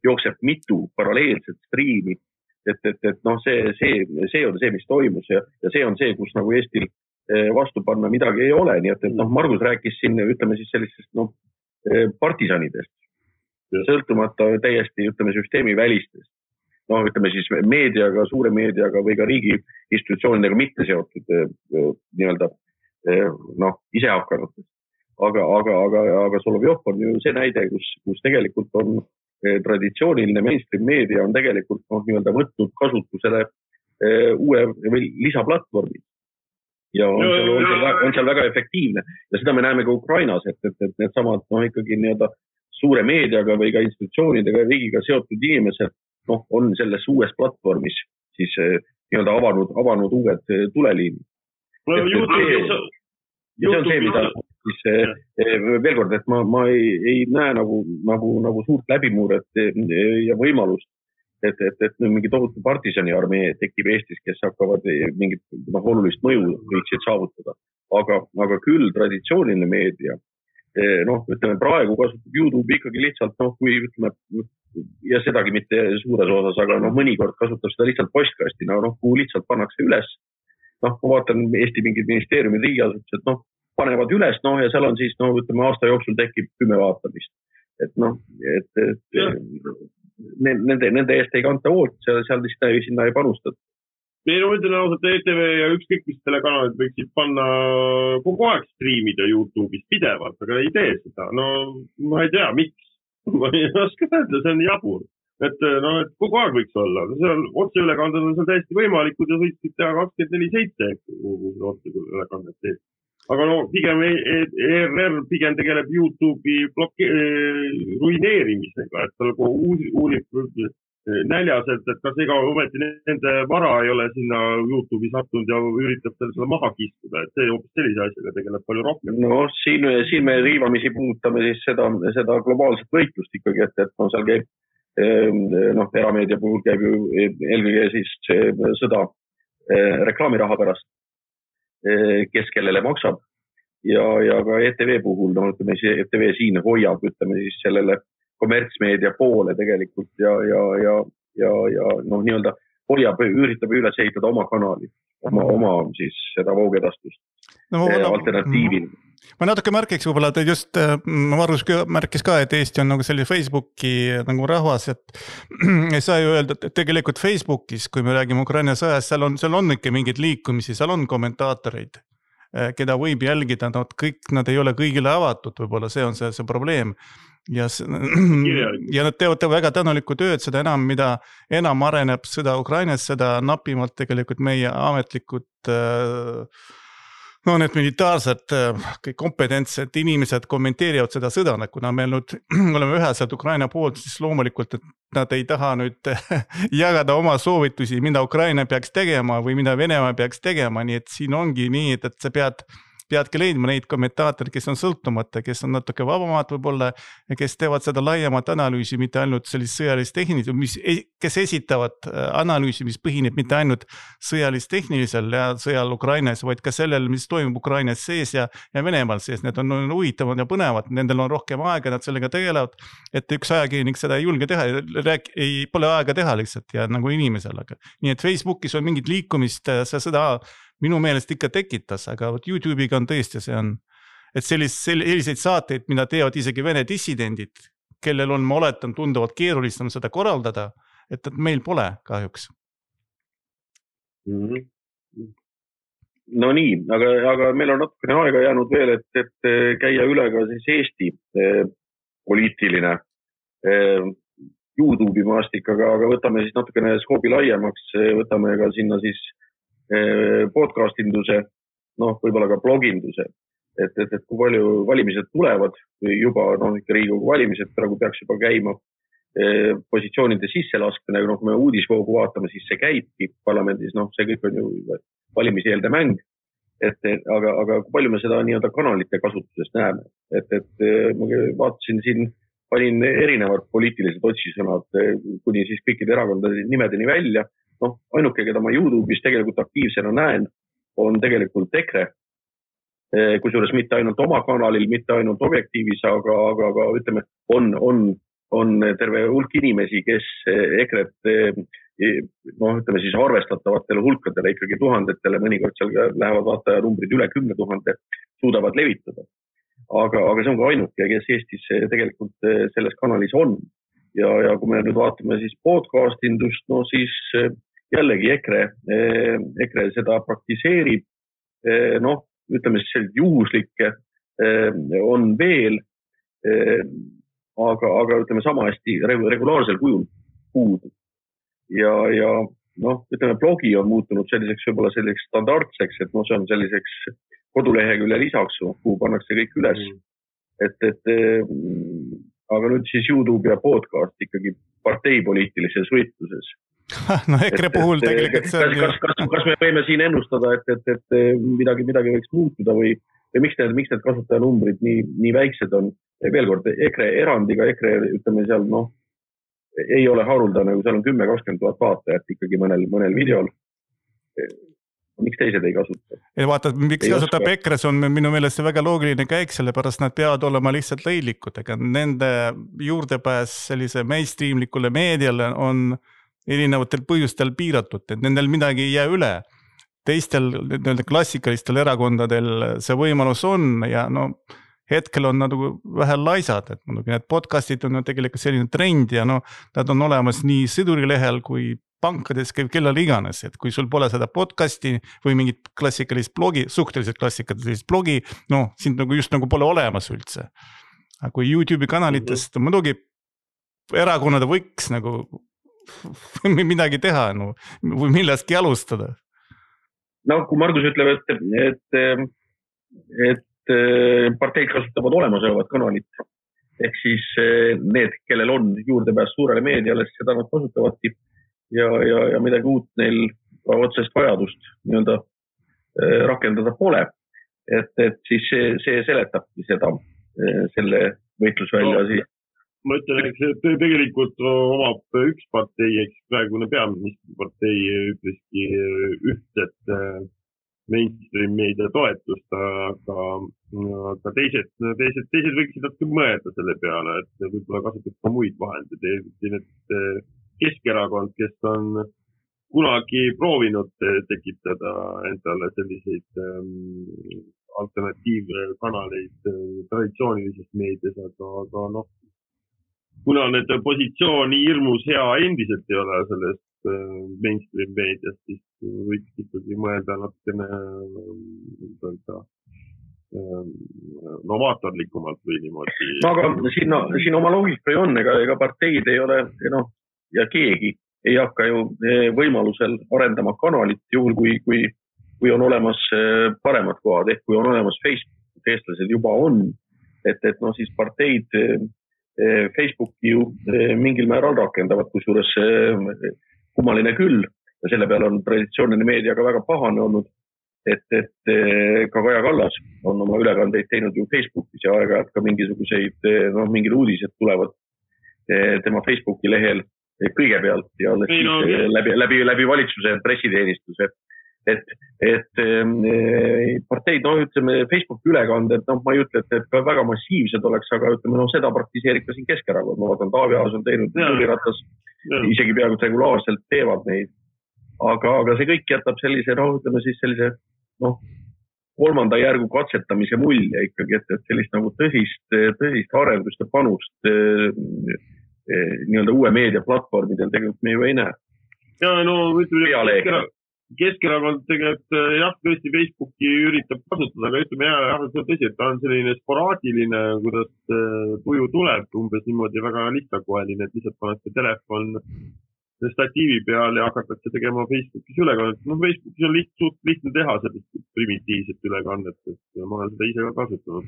jookseb mitu paralleelset striimi, et see on see, mis toimus ja see on see, kus nagu Eestil vastu panna midagi ei ole, nii et Margus rääkis siin, ütleme siis sellistest partisanidest, sõltumata täiesti, ütleme, süsteemi välistest. Ütleme siis meediaga, suure meediaga või ka riigi institutsioonidega mitte seotud nii-öelda ise hakkanutest. Aga Solovjov on ju see näide, kus tegelikult on traditsiooniline mainstream meedia on tegelikult nii-öelda võtnud kasutusele uue või lisaplatvormi. Ja on seal väga efektiivne. Ja seda me näeme ka Ukrainas, et need samad ikkagi nii-öelda suure meediaga või ka institutsioonidega riigiga seotud inimesed on selles uues platvormis siis nii-öelda avanud uued tuleliinid. See on see, mida siis veel kord, et ma ei näe nagu suurt läbimuuret ja võimalust, et mingi tohutu partisani armee tekib Eestis, kes hakkavad mingit olulist mõju võiksid saavutada. Aga küll traditsiooniline meedia, ütleme praegu kasutab YouTube ikkagi lihtsalt, kui ütleme, ja sedagi mitte suures osas, aga mõnikord kasutab seda lihtsalt postkastina, kuhu lihtsalt pannakse üles. Ma vaatan Eesti mingid ministeeriumid riigiasutused, panevad üles, ja seal on siis, ütleme, aasta jooksul tekib 10 vaatamist. Nende eest ei kanta hoolt, seal sinna ei panustata. Meil on ütlen ausalt, ETV ja ükskõik mis telekanalid võiksid panna kogu aeg striimida YouTube'is pidevalt, aga ei tee seda. Ma ei tea, miks. Ma ei oska öelda, see on jabur. Et kogu aeg võiks olla. Otseülekanded on seal täiesti võimalikud ja võiksid teha 24/7, kui otseülekandet teeb. Aga pigem ERR pigem tegeleb YouTube'i ruineerimisega, et tal uurib näljaselt, et kas ega ometi nende vara ei ole sinna YouTube'i sattunud ja üritab seda maha kiskuda, et see hoopis sellise asjaga tegeleb palju rohkem. Siin me riivamisi puudutame siis seda globaalset võitlust ikkagi, et seal käib, erameedia puhul käib ju eelkõige siis sõda reklaamiraha pärast, kes kellele maksab ja ka ETV puhul, ütleme siis ETV siin hoiab, ütleme siis sellele kommertsmeedia poole tegelikult ja nii-öelda hoiab, üritab üles ehitada oma kanali, oma siis seda voogedastust alternatiivil. Ma natuke märkiks võib-olla, et just Margus märkis ka, et Eesti on nagu selline Facebooki nagu rahvas, et ei saa ju öelda, et tegelikult Facebookis, kui me räägime Ukraina sõjast, seal on ikka mingid liikumisi, seal on kommentaatoreid, keda võib jälgida, nad ei ole kõigile avatud, võib-olla see on see probleem. Ja nad teevad väga tänulikku tööd, seda enam, mida enam areneb sõda Ukrainas, seda napimalt tegelikult meie ametlikud need militaarsed kompetentsed inimesed kommenteerivad seda sõda, kuna meil nüüd oleme üheselt Ukraina poolt, siis loomulikult, et nad ei taha nüüd jagada oma soovitusi, mida Ukraina peaks tegema või mida Venemaa peaks tegema, nii et siin ongi nii, et sa pead peadki leidma neid kommentaatorid, kes on sõltumata, kes on natuke vabamad võib-olla ja kes teevad seda laiemat analüüsi, mitte ainult sellist sõjalist tehnilist, kes esitavad analüüsi, mis põhineb mitte ainult sõjalist-tehnilisel ja sõjal Ukrainas, vaid ka sellel, mis toimub Ukrainas sees ja Venemaal sees. Need on huvitavad ja põnevad, nendel on rohkem aega, nad sellega tegelevad, et üks ajakirjanik seda ei julge teha, pole aega teha lihtsalt ja nagu inimesel. Nii et Facebookis on mingit liikumist, seda minu meelest ikka tekitas, aga YouTube'iga on tõesti see on, et selliseid saateid, mida teevad isegi Vene dissidendid, kellel on, ma oletan, tunduvalt keerulisem seda korraldada, et meil pole kahjuks. No nii, aga meil on natukene aega jäänud veel, et käia üle ka siis Eesti poliitiline YouTube'i maastik, aga võtame siis natukene skoobi laiemaks, võtame ka sinna siis podcastinduse, võib-olla ka bloginduse, et kui palju valimised tulevad või juba ikka Riigikogu valimised praegu peaks juba käima, positsioonide sisselaskmine, kui me uudisvoogu vaatame, siis see käibki parlamendis, see kõik on ju valimiseelde mäng, aga kui palju me seda nii-öelda kanalite kasutusest näeme, et ma vaatasin siin, panin erinevad poliitilised otsisõnad kuni siis kõikide erakondade nimedeni välja. Ainuke, keda ma YouTube'is tegelikult aktiivsena näen, on tegelikult EKRE, kusjuures mitte ainult oma kanalil, mitte ainult objektiivis, aga ütleme, on terve hulk inimesi, kes EKRE-t, ütleme siis arvestatavatele hulkadele, ikkagi tuhandetele, mõnikord seal lähevad vaatajanumbrid üle 10 000, suudavad levitada. Aga see on ka ainuke, kes Eestis tegelikult selles kanalis on. Ja kui me nüüd vaatame siis podcastindust, siis jällegi EKRE seda praktiseerib, ütleme siis sellised juhuslikke on veel, aga ütleme sama hästi regulaarsel kujul puudub. Ja ütleme, blogi on muutunud selliseks võib-olla selliseks standardseks, et see on selliseks kodulehekülje lisaks, kuhu pannakse kõik üles. Aga nüüd siis YouTube ja podcast ikkagi parteipoliitilises võitluses. EKRE puhul tegelikult kas me võime siin ennustada, et midagi võiks muutuda või miks need kasutajanumbrid nii väiksed on? Veel kord, EKRE erandiga, ütleme seal, ei ole haruldane, kui seal on 10-20 000 vaatajat ikkagi mõnel videol. Miks teised ei kasuta? Vaata, miks kasutab EKRE, see on minu meelest see väga loogiline käik, sellepärast nad peavad olema lihtsalt leidlikud, ega nende juurdepääs sellise mainstreamlikule meediale on erinevatel põhjustel piiratud, et nendel midagi ei jää üle. Teistel klassikalistel erakondadel see võimalus on ja hetkel on nad vähe laisad, et need podcastid on tegelikult selline trend ja nad on olemas nii sõdurilehel kui pankades, kellel iganes, et kui sul pole seda podcasti või mingit klassikalist blogi, suhteliselt klassikalist blogi, sind just pole olemas üldse. Aga kui YouTube'i kanalitest muidugi erakonnad võiks midagi teha või millestki alustada. Kui Margus ütleb, et parteid kasutavad olemasolevat kanalit, ehk siis need, kellel on juurdepääs suurele meediale, seda nad kasutavadki ja midagi uut neil otsest vajadust rakendada pole. Et siis see seletabki selle võitlusvälja siis. Ma ütlen, et tegelikult omab üks partei, eks praegune peaministripartei ütleski ühtset mainstream meedia toetust, aga teised võiksid natuke mõelda selle peale, et võib-olla kasutab ka muid vahendeid. Keskerakond, kes on kunagi proovinud tekitada endale selliseid alternatiivkanaleid traditsioonilisest meedias, aga kuna need positsiooni hirmus hea endiselt ei ole sellest mainstream meediast, siis võiks ikkagi mõelda natukene novaatorlikumalt või niimoodi. Aga siin oma loogika ju on, ega parteid ei ole, ja keegi ei hakka ju võimalusel arendama kanalit juhul, kui on olemas paremad kohad, ehk kui on olemas Facebook, eestlased juba on, et siis parteid Facebooki ju mingil määral rakendavad, kusjuures kummaline küll ja selle peale on traditsiooniline meedia ka väga pahane olnud, ka Kaja Kallas on oma ülekandeid teinud ju Facebookis ja aeg-ajalt ka mingisuguseid, mingid uudised tulevad tema Facebooki lehel kõigepealt ja läbi valitsuse pressiteenistuse. Parteid, ütleme, Facebooki ülekanded, ma ei ütle, et ka väga massiivsed oleks, aga ütleme, seda praktiseerib ka siin Keskerakond. Ma vaatan, Taavi Aas on teinud, Jüri Ratas isegi peaaegu regulaarselt teevad neid. Aga see kõik jätab sellise, ütleme siis sellise, kolmanda järgu katsetamise mulje ikkagi, et sellist nagu tõsist arendust ja panust nii-öelda uue meediaplatvormidel tegelikult me ju ei näe. Ja ütleme, Keskerakond tegelikult jah, tõesti Facebooki üritab kasutada, aga ütleme see on tõsi, et ta on selline sporaadiline, kuidas tuju tuleb, umbes niimoodi väga lihtsakoeline, et lihtsalt pannakse telefon statiivi peal ja hakatakse tegema Facebookis ülekannet. Facebookis on lihtne teha sellist primitiivset ülekannet, et ma olen seda ise ka kasutanud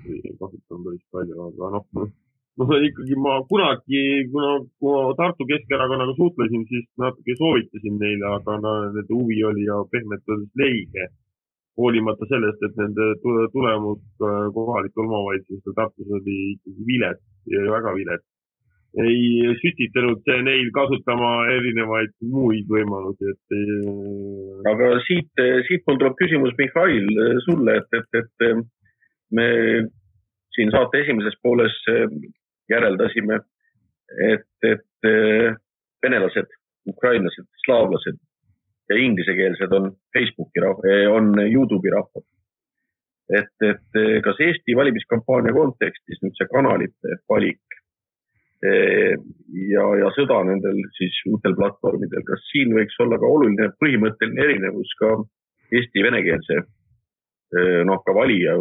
päris palju, aga ikkagi ma kunagi, kui Tartu Keskerakonnaga suhtlesin, siis natuke soovitasin neile, aga nende huvi oli ja pehmelt oli leige, hoolimata sellest, et nende tulemus kohalikul omavalitsustel Tartus oli ikkagi vilet ja väga vilet. Ei sütitanud neil kasutama erinevaid muid võimalusi. Aga siit mul tuleb küsimus, Mihhail, sulle, et me siin saate esimeses pooles järeldasime, et venelased, ukrainlased, slaavlased ja inglisekeelsed on Facebooki on YouTube'i rahvad. Et kas Eesti valimiskampaania kontekstis nüüd see kanalite valik ja sõda nendel siis uutel platvormidel, kas siin võiks olla ka oluline põhimõtteline erinevus ka Eesti venekeelse ka valija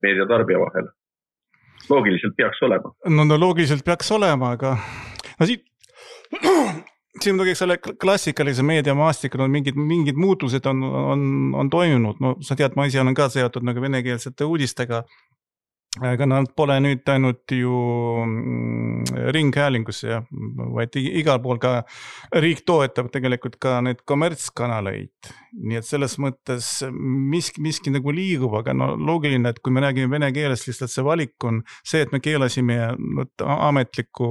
meediatarbija vahel? Loogiliselt peaks olema. Loogiliselt peaks olema, aga siin muidugi selle klassikalise meediamaastikul on mingid muutused on toimunud. Sa tead, ma ise olen ka seotud nagu venekeelsete uudistega, aga nad pole nüüd ainult ju ringhäälingus, vaid igal pool ka riik toetab tegelikult ka need kommertskanaleid. Nii et selles mõttes miski nagu liigub, aga loogiline, et kui me räägime vene keeles, lihtsalt see valik on see, et me keelasime ametliku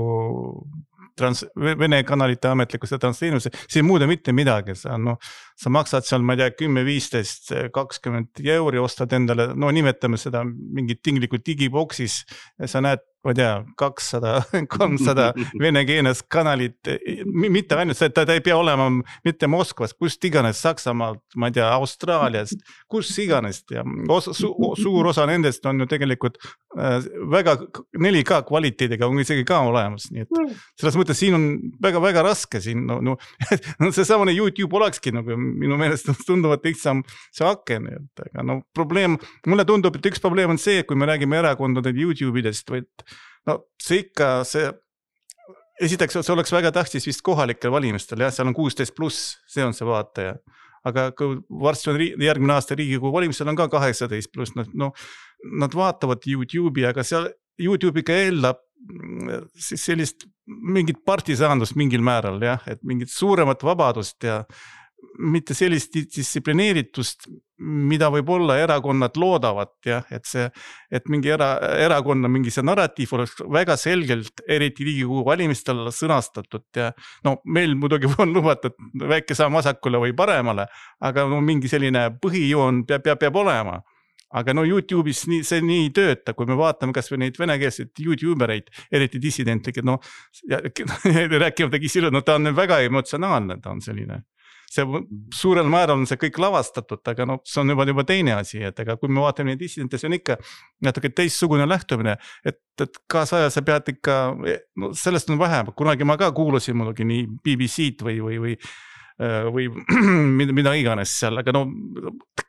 vene kanalite ametlikku seda transteenuse, see ei muuda mitte midagi. Sa maksad seal, ma ei tea, 10, 15, 20 euri, ostad endale, nimetame seda mingit tinglikult digiboksis ja sa näed, ma ei tea, 200, 300 venekeelnes kanalit, mitte ainult see, ta ei pea olema mitte Moskvas, kust iganes, Saksamaalt, ma ei tea, Austraaliast, kus iganes. Ja suur osa nendest on ju tegelikult väga 4K kvaliteediga on isegi ka olemas. Nii et selles mõttes siin on väga raske siin. See samane YouTube olekski nagu minu meelest tunduvad lihtsam see aken. Aga probleem, mulle tundub, et üks probleem on see, kui me räägime erakondade YouTube'idest, vaid see ikka, esiteks see oleks väga tähtis vist kohalikel valimistel, seal on 16+, see on see vaataja. Aga kui varsti on järgmine aasta Riigikogu valimistel on ka 18+, nad vaatavad YouTube'i, aga seal YouTube'iga eeldab sellist mingit partisaandust mingil määral, et mingit suuremat vabadust ja mitte sellist distsiplineeritust, mida võib-olla erakonnad loodavad, et mingi erakonna mingi see narratiiv oleks väga selgelt, eriti Riigikogu valimistel sõnastatud ja meil muidugi on lubatud väike samm vasakule või paremale, aga mingi selline põhijoon peab olema. Aga YouTube'is see nii ei tööta, kui me vaatame kas või neid venekeelseid YouTubereid, eriti dissidentlikke, rääkivadagi silud, ta on väga emotsionaalne, ta on selline. See suurel määral on see kõik lavastatud, aga see on juba teine asi, et kui me vaatame neid dissidente, see on ikka natuke teistsugune lähtumine, et kaasaja sa pead ikka, sellest on vähem, kunagi ma ka kuulasin muidugi nii BBC-d või mida iganes seal, aga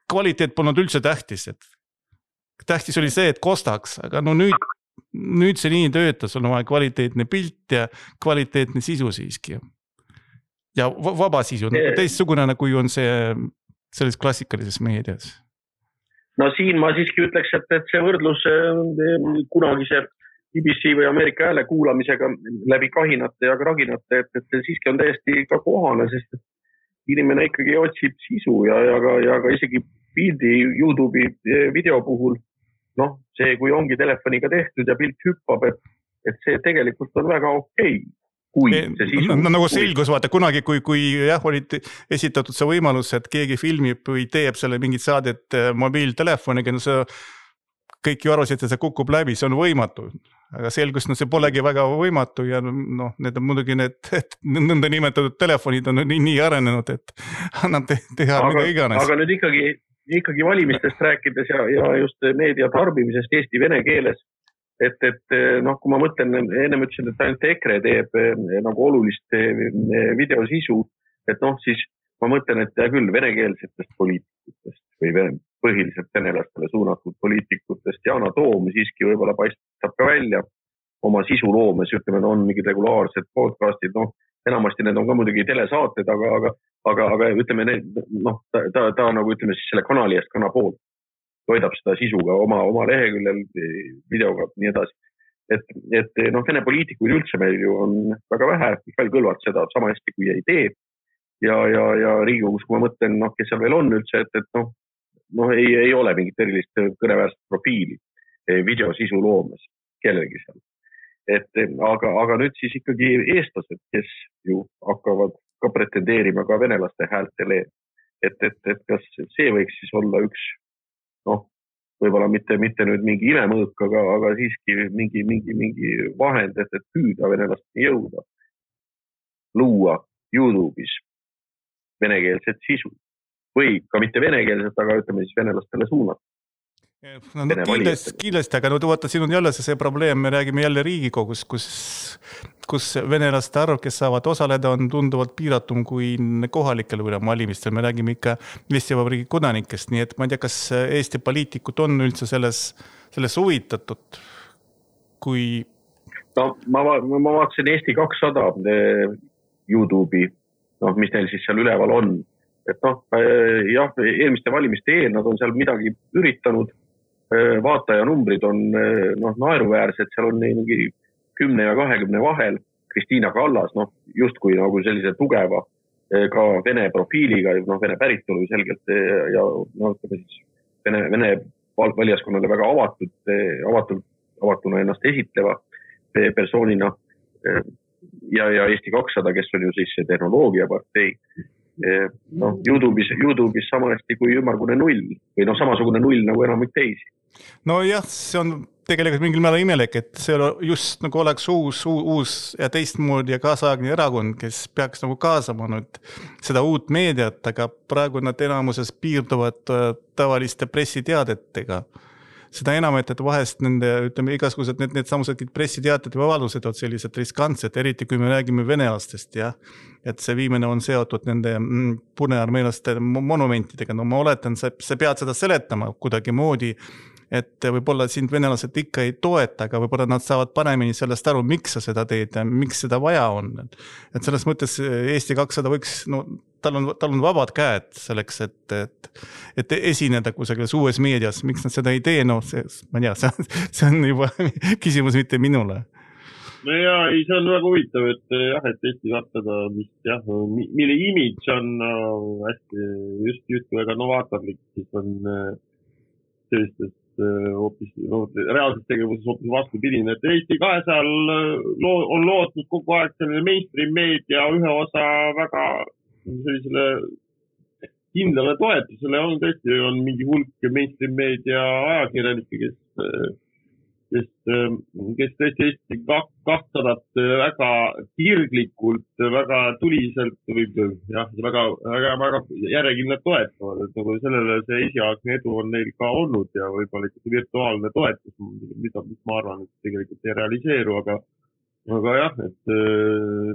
kvaliteet polnud üldse tähtis, et tähtis oli see, et kostaks, aga nüüd see nii töötas, on vaja kvaliteetne pilt ja kvaliteetne sisu siiski. Ja vaba sisu, teistsugune kui on see selles klassikalises meedias. Siin ma siiski ütleks, et see võrdlus kunagise BBC või Ameerika hääle kuulamisega läbi kahinate ja kraginate, et see siiski on täiesti ka kohane, sest inimene ikkagi otsib sisu ja ka isegi pildi YouTube'i video puhul, noh, see, kui ongi telefoniga tehtud ja pilt hüppab, et see tegelikult on väga okei. Nagu selgus, vaata kunagi, kui jah, olid esitatud see võimalus, et keegi filmib või teeb selle mingit saadet mobiiltelefoniga, no see kõik ju arvasid, et see kukub läbi, see on võimatu. Aga selgus, no see polegi väga võimatu ja noh, need on muidugi need nõnda nimetatud telefonid on nii arenenud, et annab teha mida iganes. Aga nüüd ikkagi valimistest rääkides ja just meedia tarbimisest Eesti vene keeles, et noh, kui ma mõtlen, ennem ütlesin, et ainult EKRE teeb nagu olulist videosisu, et noh, siis ma mõtlen, et küll venekeelsetest poliitikutest või põhiliselt venelastele suunatud poliitikutest Yana Toom siiski võib-olla paistab ka välja oma sisuloomes, ütleme, on mingid regulaarsed podcastid, noh, enamasti need on ka muidugi telesaated, aga ütleme, noh, ta nagu ütleme siis selle kanali eest kana poolt toidab seda sisuga oma leheküljel, videoga, nii edasi. Et noh, vene poliitikuid üldse meil ju on väga vähe, Mihhail Kõlvart seda sama hästi kui ei tee. Ja Riigikogus, kui ma mõtlen, noh, kes seal veel on üldse, et noh, ei ole mingit erilist kõneväärset profiili videosisu loomes kellelgi seal. Aga nüüd siis ikkagi eestlased, kes ju hakkavad ka pretendeerima ka venelaste häältele, et kas see võiks siis olla üks noh, võib-olla mitte nüüd mingi imemõõk, aga siiski mingi vahend, et püüda venelasteni jõuda, luua YouTube'is venekeelset sisu või ka mitte venekeelset, aga ütleme siis venelastele suunata. No, kindlasti, aga vaata, siin on jälle see probleem, me räägime jälle Riigikogus, kus venelaste arv, kes saavad osaleda, on tunduvalt piiratum kui kohalikel valimistel. Me räägime ikka Eesti Vabariigi kodanikest, nii et ma ei tea, kas Eesti poliitikud on üldse selles huvitatud, kui... No, ma vaatasin Eesti 200 YouTube'i, noh, mis neil siis seal üleval on. Et noh, jah, eelmiste valimiste eel nad on seal midagi üritanud, vaataja numbrid on naeruväärsed, seal on mingi 10 ja 20 vahel. Kristiina Kallas, noh, justkui nagu sellise tugeva ka vene profiiliga, noh, vene päritolu selgelt ja noh, siis vene valijaskonnale väga avatuna ennast esitleva persoonina ja Eesti 200, kes on ju siis see tehnoloogiapartei. No, YouTube'is samasti kui ümmargune null või noh, samasugune null nagu enamik teisi. No jah, see on tegelikult mingil määral imelik, et see just nagu oleks uus ja teistmoodi ja kaasaegne erakond, kes peaks nagu kaasama nüüd seda uut meediat, aga praegu nad enamuses piirduvad tavaliste pressiteadetega. Seda enam, et vahest nende, ütleme, igasugused need samused pressiteated või avaldused on sellised riskantsed, eriti kui me räägime venelastest, jah. Et see viimene on seotud nende punearmeelaste monumentidega. No ma oletan, sa pead seda seletama kuidagi moodi, et võib-olla sind venelased ikka ei toeta, aga võib-olla nad saavad paremini sellest aru, miks sa seda teed ja miks seda vaja on. Et selles mõttes Eesti 200 võiks, no tal on vabad käed selleks, et esineda kusagil uues meedias. Miks nad seda ei tee? No ma ei tea, see on juba küsimus mitte minule. No ja, see on väga huvitav, et jah, et Eesti 200, mis jah, mille imidž on hästi just väga novaatorlik, siis on sellistest hoopis, reaalses tegevuses hoopis vastupidine, et Eesti 200 on lootnud kogu aeg selline mainstream meedia ühe osa väga sellisele kindlale toetusele on tõesti mingi hulk mainstream meedia ajakirjanikke, kes tõesti Eesti 200 väga kirglikult, väga tuliselt või jah, väga järjekindlalt toetavad, et nagu sellele see esialgne edu on neil ka olnud ja võib-olla ikkagi virtuaalne toetus, mis ma arvan, et tegelikult ei realiseeru, aga jah, et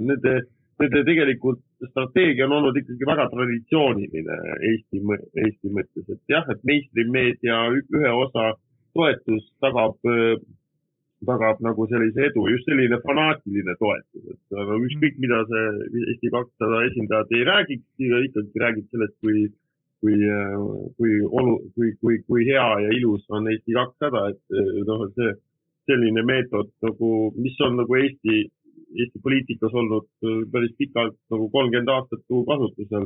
nende tegelikult strateegia on olnud ikkagi väga traditsiooniline Eesti mõttes, et jah, et mainstream meedia ühe osa toetus tagab nagu sellise edu, just selline fanaatiline toetus, et ükskõik mida see Eesti 200 esindajad ei räägiks, ikkagi räägib sellest, kui hea ja ilus on Eesti 200, et noh, see selline meetod, nagu, mis on nagu Eesti poliitikas olnud päris pikalt nagu 30 aastat kasutusel,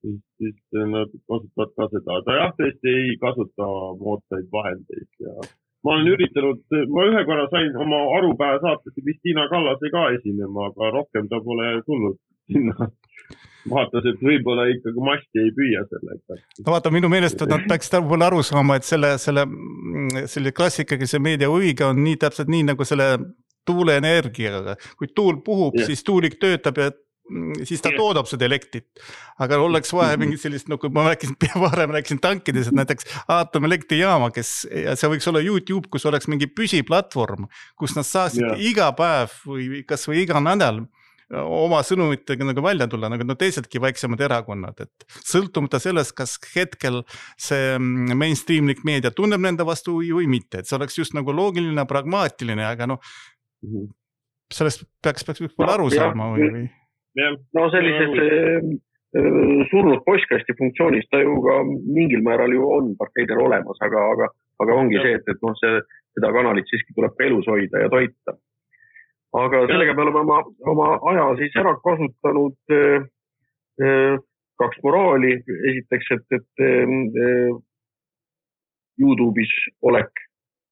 siis nad kasutavad ka seda. Ta jah, tõesti ei kasuta moodsaid vahendeid ja ma olen üritanud, ma ühe korra sain oma arupäeva saatesse Kristiina Kallase ka esinema, aga rohkem ta pole tulnud sinna. Vaatas, et võib-olla ikkagi masti ei püüa sellega. No vaata, minu meelest nad peaksid võib-olla aru saama, et selle klassikalise meedia huviga on nii täpselt nii nagu selle tuuleenergiaga. Kui tuul puhub, siis tuulik töötab ja siis ta toodab seda elektrit. Aga oleks vaja mingi sellist, no kui ma rääkisin tankides, et näiteks aatomelektриjaama, ja see võiks olla YouTube, kus oleks mingi püsiplatvorm, kus nad saaksid iga päev või kas või iga nädal oma sõnumitega nagu välja tulla, nagu teisedki väiksemad erakonnad, et sõltumata sellest, kas hetkel see mainstreamlik meedia tunneb nende vastu või mitte, et see oleks just nagu loogiline, pragmaatiline, aga sellest peaks aru saama või? No sellises surnud postkasti funktsioonis ta ju ka mingil määral ju on parteidel olemas, aga ongi see, et seda kanalit siiski tuleb elus hoida ja toita. Aga sellega me oleme oma aja siis ära kasutanud kaks moraali. Esiteks, et YouTube'is olek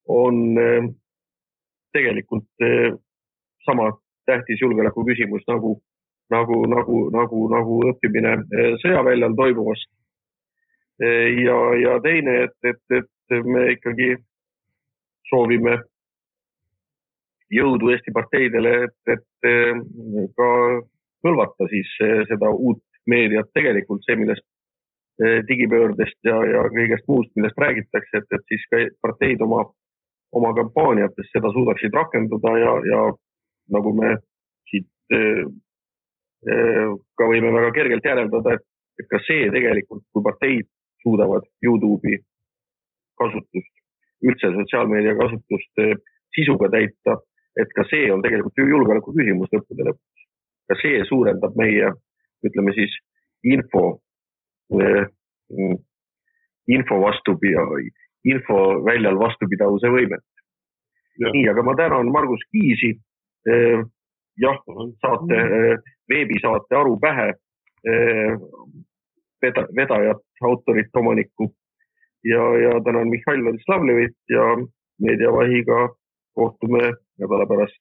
on tegelikult sama tähtis julgeoleku küsimus nagu õppimine sõjaväljal toimuvast. Ja teine, et me ikkagi soovime jõudu Eesti parteidele, et ka hõlvata siis seda uut meediat tegelikult see, millest digipöördest ja kõigest muust, millest räägitakse, et siis ka parteid oma kampaaniates seda suudaksid rakendada ja nagu me siit ka võime väga kergelt järeldada, et ka see tegelikult, kui parteid suudavad YouTube'i kasutust, üldse sotsiaalmeedia kasutust sisuga täita, et ka see on tegelikult julgeoleku küsimus lõppude lõpuks. Ka see suurendab meie, ütleme siis, info väljal vastupidavuse võimet. Nii, aga ma tänan Margus Kiisi, veebisaate Aru pähe, vedajat, autorit, omanikku ja tänan Mihhail Vladislavlevit ja Meediavahiga kohtume nädala pärast.